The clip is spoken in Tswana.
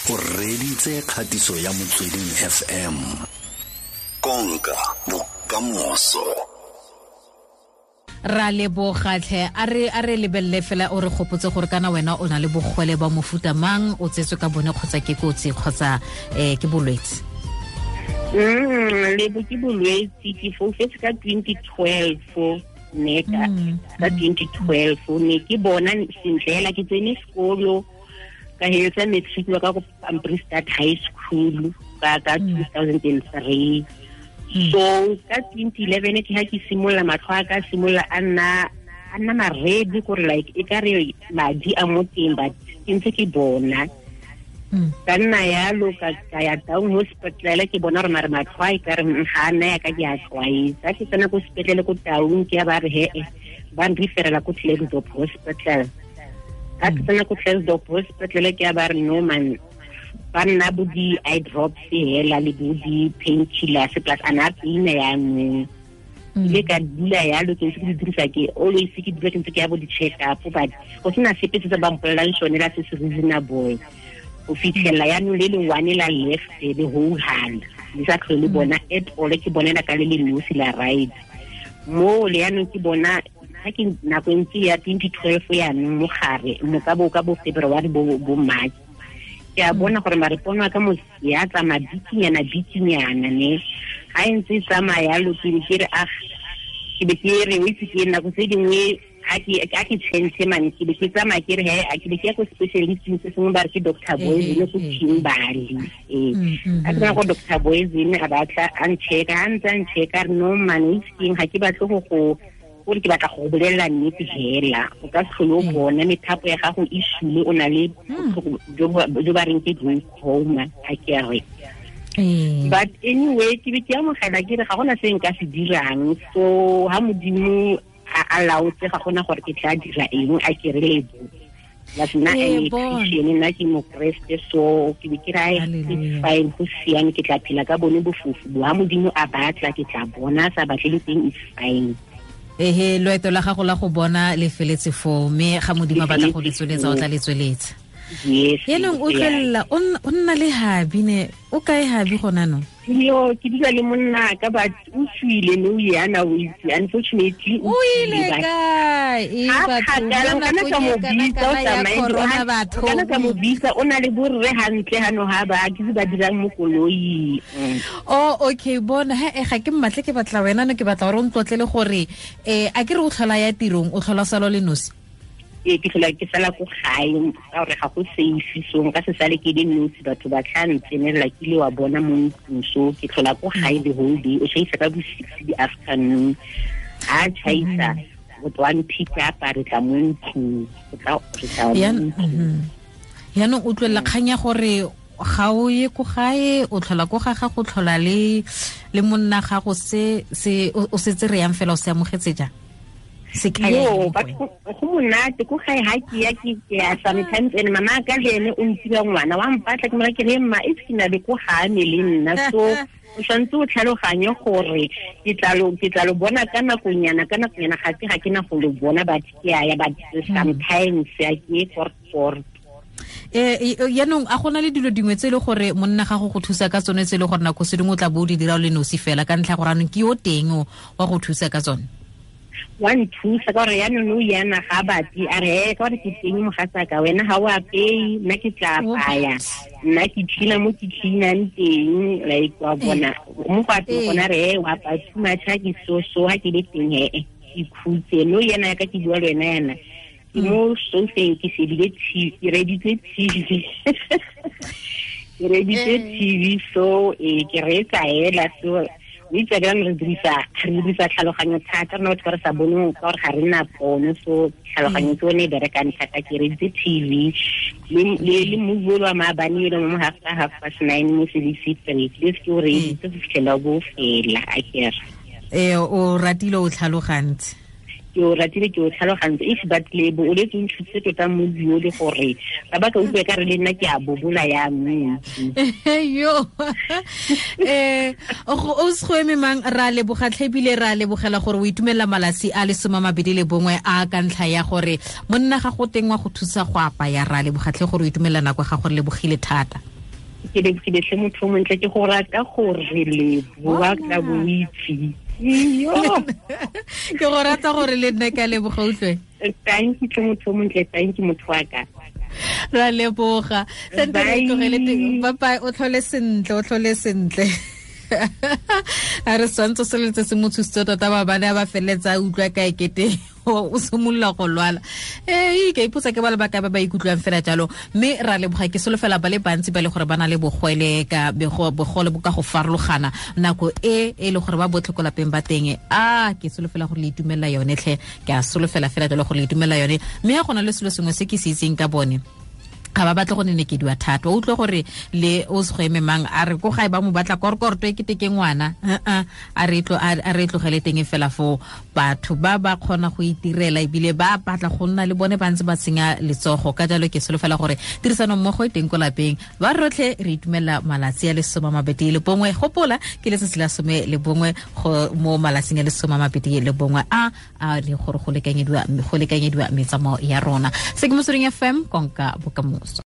O reditse kgatiso ya Motsweding FM. Konka bokamoso. Ra lebogatlhe, a re lebelele fela, o re gopotse gore kana wena o na le bogole ba mofuta mang, o tsetswe ka bone kgotsa ke kotsi kgotsa ke bolwetse? Lebo, ke bolwetse. Ke foufetse ka 2012, ne ka 2012 ne ke bona sentle hela. Ke tsene sekolo, ka heletsa matric wa ka ko Ambristad High School ka 2003. So ka 2011 ke ha ke simolola, matlho a ka simolola a nna maredi, gore like e ka re madi a mo teng, but ke ntse ke bona. Ka nna yalo ka ya down hospital, ke bona gore mare matlho a e ka re ga a nna ya ka ke a tlwaetsa. Ke tsena ko sepetlele ko Taung, ke ya ba re he ba nreferela ko Klerksdorp Hospital. Ka ke tsena ko Klerksdorp Hospital, ke ya ba re no man, ba nna bo di-eye drops hela le bo di-painkillers, plus a na paina yanong. Ile ka dula yalo, ke ntse ke di dirisa, ke always ke dula ke ntse ke ya bo di-check up, but go sena sepe se se ba mpolelang sone la se se reasonable, go fitlhelela yaanong le le one la left le hohala le sa tlhole le bona at all. Ke bonela ka le le nosi la right mo le yaanong. Ke bona ga ke nako e ntse ya 2012 yaanong mo gare mo ka bo February, bo March, ke a bona gore mare pono ya ka mo ya tsamaya bikinyana bikinyana, ne ga e ntse e tsamaya yalo, ke be ke re ah, ke be ke re o itse ke nako tse dingwe ga ke change man, ke be ke tsamaya ke re he a ke be ke ya ko specialisting se sengwe, ba re ke Dr Boyzene ko Kimberley. Ee, a ke tsena ko Dr Boyzene, a batla a nchecka, a ntse a nchecka, a re no man, o itse keng, ga ke batle go go gore ke batla go bolelela nnete hela, o ka se tlhole o bona, methapo ya gago e sule, o na le botlhoko jo ba reng ke glaucoma, a ke re. But anyway, ke be ke amogela, ke re ga gona se nka se dirang, so ha Modimo a laotse, ga gona gore ke tla dira eng, a ke re. Lebo, plus nna Ee, I'm a bona. Christian, nna ke Mokreste, so ke be ke re ai, it's Hallelujah. fine, go siame, ke tla phela ka bone bofofu bo. Ha Modimo a batla, ke tla bona, a sa batle le teng, it's fine. Ehe, loeto la gago la go bona le feletse foo, mme ga Modimo a batla go le Le feletse tsweletsa, o foo. tla le tsweletsa. Yes. Yaanong o tlolela o nna le hubby, ne o kae hubby gona no? Yo, ke dula le monna ka, but o tswile no yana, o itse, unfortunately. O ile kae? E Ha batho, kgakala, mo o kana ka nakong mo e bitsa, o kana-kana ya tsamaye, corona, o batho. kana ka mo bitsa, o na le borre hantle hano ha ba ke se ba dirang mo koloing. Oh, okay, bona he, ga ke mmatle, ke batla wena no, ke batla gore o ntlotlele gore a ke re o tlhola ya tirong, o tlhola salo le nosi? Ee, ke tlhola ke sala ko gae ka gore ga go safe, so nka se sale ke le nosi, batho ba tla ntsenelela ke ile wa bona mo ntlong. So ke tlhola ko gae the whole day. O chaisa ka bo 6 di afternoon, ha chaisa o tlo pick up, re tla mo ntlong, o tla re tla mo ntlong. Yaanong o tlolela kgang ya gore ga o ye ko gae, o tlhola ko ga gago, tlhola le monna gago, se se o setse re yang fela, o se amogetse jang, se kaya Yo, eng mo go but wena? Go monate ko gae ha ke ya, ke ya sometimes, and mama ka le ene o ntira ngwana wa mpatla, ke mora ke re mma e ke na le ko ga me le nna, so o tshwanetse o tlhaloganye gore ke tla lo bona ka nakonyana, ka nakonyana, ga ke na go lo bona, but ke a ya, but sometimes ya ke for Yaanong a gona le dilo dingwe tse e le gore monna gago go thusa ka tsone, tse e le gore nako se dingwe o tla bo o di dira o le nosi fela, ka ntlha ya gore anong ke yo teng o wa go thusa ka tsone? Wa nthusa ka gore yaanong o yana ga batle, a re "Eh, ka gore ke teng mogatsaka, wena ga o apeye, nna ke tla apaya, nna ke cleana mo ke cleanang teng," like wa bona mo go apeye gona, re "Eh, wa apaya too much, ha ke so so ha ke le teng he ke khutse." No yena ya ka ke bua le wena yana, ke mo sofeng, ke shebile TV, ke reditse TV, ke reditse TV, so ke reetsa hela. So o itse ka re dirisa tlhaloganyo thata rona batho ba re sa boneng, ka gore ga re na pono, so tlhaloganyo ke one e berekang thata. Ke reditse TV le movie o le wa maabane ele mo 9:30 mo SABC 3, le se ke o reeditse go fitlhela bo fela, a kere. Ee, o ratile, o tlhalogantse. Ke o ratile, ke o tlhalogantse. If but lebo o letse o nthusitse tota movie o le gore ba ba ka utlwe ka re le nna ke a bobola yanong. Yo, o se go eme mang, ra leboga tlhe, ebile ra lebogela gore o itumelela malatsi a le 21 a ka ntlha ya gore monna ga go teng wa go thusa go apaya. Ra leboga tlhe gore o itumelela nako ya gago, re lebogile thata. Ke lebogile tlhe motho o montle, ke go rata gore leboa ka boitse. Iyo. Ke go rata gore le nna ka leboga, utlwe. Thank you tlhe motho o montle, thank you motho wa ka. Ra leboga. Sente re Bye. tlogele teng. Bye bye, o tlhole sentle, o tlhole sentle. A re swantse se letse se mo thusitse tota, ba bane ba feleletsa a utlwa ka ekete o simolola go lwala. Ee, ke ipotsa ke ba le bakae ba ba ikutlwang fela jalo, mme ra leboga. Ke solofela ba le bantsi ba le gore ba na le bogwele ka bogole bo ka go farologana nako e e le gore ba botlhe ko lapeng ba teng. A ke solofela gore le itumelela yone tlhe, ke a solofela fela jalo gore le itumelela yone. Mme ga go na le selo sengwe se ke se itseng ka bone, ga ba batle go nenekediwa thata. O utlwe gore le o se go eme mang a re ko gae ba mo batla korkorto e kete ke ngwana. A re tlogele teng fela foo. Batho ba ba kgona go itirela ebile ba batla go nna le bone ba ntse ba tsenya letsogo. Ka jalo ke solofela gore tirisano mmogo e teng ko lapeng. Ba rotlhe re itumelela malatsi a 21. Gopola ke letsatsi la 11 go mo malatsing a 21 a a le gore go lekanyediwa metsamao ya rona. Se ke Motsweding FM, konka bokamoso.